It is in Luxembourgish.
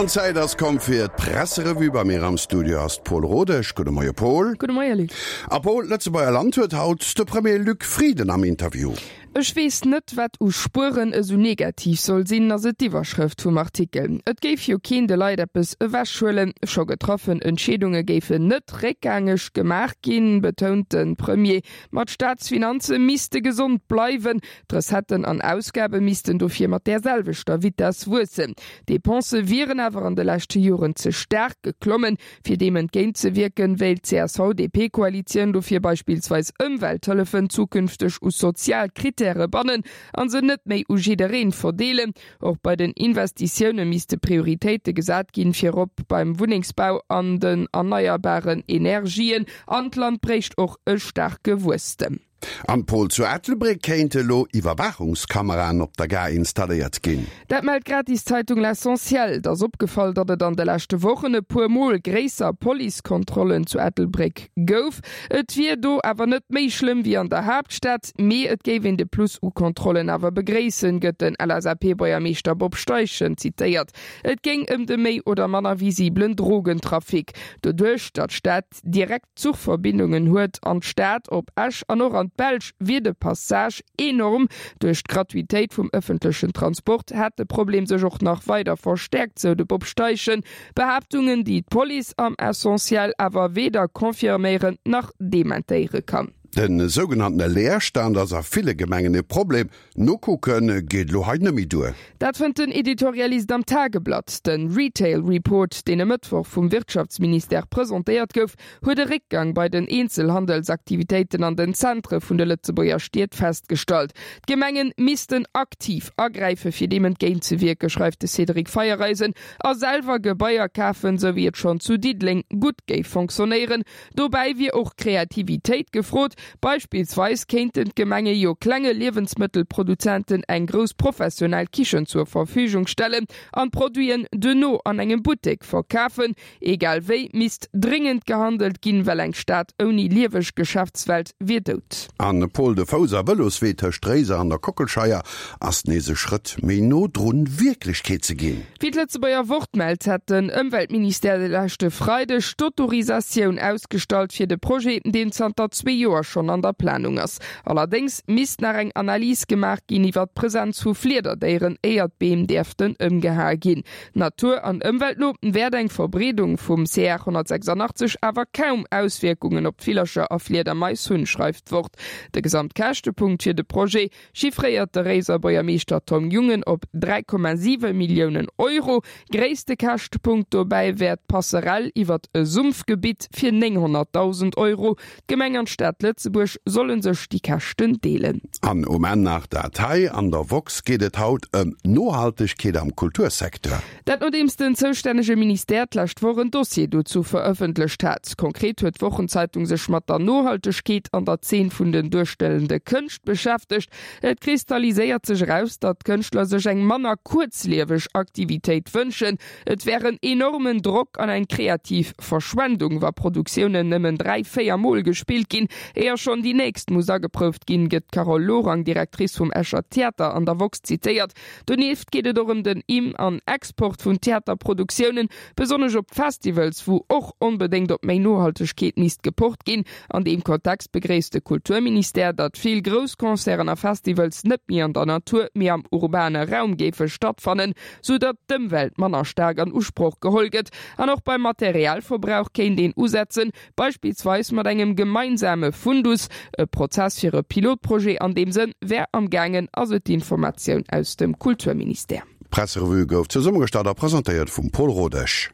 An d'Zäit ass komm fir d'Presserevue. Bei mir am Studio ass d'Paule Rodesch. Gudde Moie Paul. Gudde Moie Luc. A Paul, d'Lëtzebuerger Land huet haut de Premier Luc Frieden am Interview. Ech weess net, wat u Spueren esou negativ soll sinn, ass et d'Iwwerschrëft vum Artikel. Et géif jo keen de Leit eppes ewechhuelen. Scho getraffen Entscheedunge géifen net réckgängeg gemaach ginn, betount de Premier. Ma d'Staatsfinanze misste gesond bleiwen. D'Recetten an Ausgabe missten dofir mat där selwechter Vitess wuessen. D'Depensë wieren awer an de leschte Joren ze staark geklommen. Fir deem entgéint ze wierken, wéilt d'CSV-DP-Koalitioun dofir beispillsweis Ëmwelthëllefen zukünfteg u sozial Krittäre bannen a se net méi u jiddereen verdeelen. Och bei den Investitioune misste Prioritéite gesat ginn, virop beim Wunnengsbau an den erneierbaren Energien. An d'Land bréicht och e staarke Wuesstem. Am Pol zu Ettelbréck kéinte elo Iwwerwaachungskameraen op der Gare installéiert ginn. Dat mellt d'Gratiszeitung L'Essentiel. Et ass opgefall, datt et an de leschte Wochen e puer Mol gréisser Policekontrollen zu Ettelbréck gouf. Et wier do awer net méi schlëmm wéi an der Haaptstad, mee et géif een de Plus u Kontrollen awer begréissen, gëtt den LSAP-Buergermeeschter Bob Steichen zitéiert. Et géing ëm de méi oder manner visibelen Drogentrafic. Doduerch, datt d'Stad direkt Zuchverbindungen huet an d'Stad, op Esch an och an d'Belsch, wier de Passage enorm. Duerch d'Gratuitéit vum ëffentlechen Transport hätt de Problem sech och nach weider verstäerkt, sou de Bob Steichen. Behaaptungen, déi d'Police am Essentiel awer weder confirméieren nach dementéiere kann. De sougenanntene Leerstand ass a ville Gemengen e Problem. Nokucke geet elo hei net méi duer. Dat fënnt den Editorialist am Tageblatt. De Retail Report, deen e Mëttwoch vum Wirtschaftsministère presentéiert gouf, huet e Réckgang bei den Eenzelhandelsaktivitéiten an den Zentre vun de Lëtzebuerger Stied festgestallt. D'Gemenge missten aktiv agräife fir deem entgéintzewierken, schreift de Cédric Feiereisen, a selwer Gebaier kafen, sou wéi et schonn zu Diddeleng gutt géif fonctionnéieren. Dobäi wier och Kreativitéit gefrot. Beispillsweis kéinten d'Gemenge jo klenge Liewensmëttelproduzenten eng grouss professionell Kichen zur Verfügung stellen an d'Produiten duerno an engem Buttek verkafen. Egal wéi misst dréngend gehandelt ginn, well eng Stad ouni lieweg Geschäftswelt wier dout. An Paul, de Fouss a Vëloswee tëscht Réiser an der Kockelscheier ass nees e Schrëtt méi no drun, Wierklechkeet ze ginn. Wéi d'Lëtzebuerger Wort mellt, hätt den Ëmweltministère de leschte Freideg d'Autorisatioun ausgestallt fir de Projet, deen zanter zwee Joer schonn an der Planung ass. Allerdéngs misst nach eng Analys gemaach ginn iwwer d'Presenz vu Fliederdéieren, éier d'Beem däerften ëmgehae ginn. Natur an Ëmwelt no wäert eng Verbreedung vum CR 186 awer kaum Auswierkungen op d'Villercher a Fliedermais hunn, schreift d'Wort. De Gesamtkäschtepunkt fir de Projet chiffréiert de Réiser Buergermeeschter Tom Jungen op 3,7 Milliounen Euro. Gréisste Käschtpunkt dobäi wär d'Passerell iwwert e Sumpfgebitt fir 900.000 Euro. D'Gemeng an d'Stad Lëtzebuerg solle sech déi Käschten deelen. An um Enn nach dat hei, An der woxx geet et haut ëm Nohaltegkeet am Kultursecteur. Dat nodeems den zoustännege Ministère d'lescht Woch en Dossier dozou verëffentlecht hat. Konkret huet d'Wochenzeitung sech mat der Nohaltegkeet an der Zeen vun den duerstellende Kënscht beschäftegt. Et kristalliséiert sech eraus, datt d'Kënschtler sech eng manner kuerzlieweg Aktivitéit wënschen. Et wär en enormen Drock an eng kreativ Verschwendung, wa Produktiounen nëmmen 3, 4 Mol gespillt ginn, éier schonn déi nächst muss ageprouft ginn, gëtt d'Carole Lorang, Directrice vum Escher Theater, an der woxx zitéiert. Donieft geet et och ëm den Im an Export vun Theaterproduktiounen, besonnesch op Festivals, wou och onbedéngt op méi Nohaltegkeet misst gepocht ginn. An deem Kontext begréisst de Kulturministère, datt vill grouss Concerten a Festivals net méi an der Natur, mee am urbane Raum géife stattfannen, sou datt d'Ëmwelt manner staark an Usproch geholl gëtt. An och beim Materialverbrauch kéint een usetzen, Beispillsweis mat engem gemeinsame Fundus. E Prozess fir e Pilotprojet an deem Sënn wär am gaangen, ass et d'Informatioun aus dem Kulturministère. D'Presserevue gouf zesummegestallt a presentéiert vum Paul Rodesch.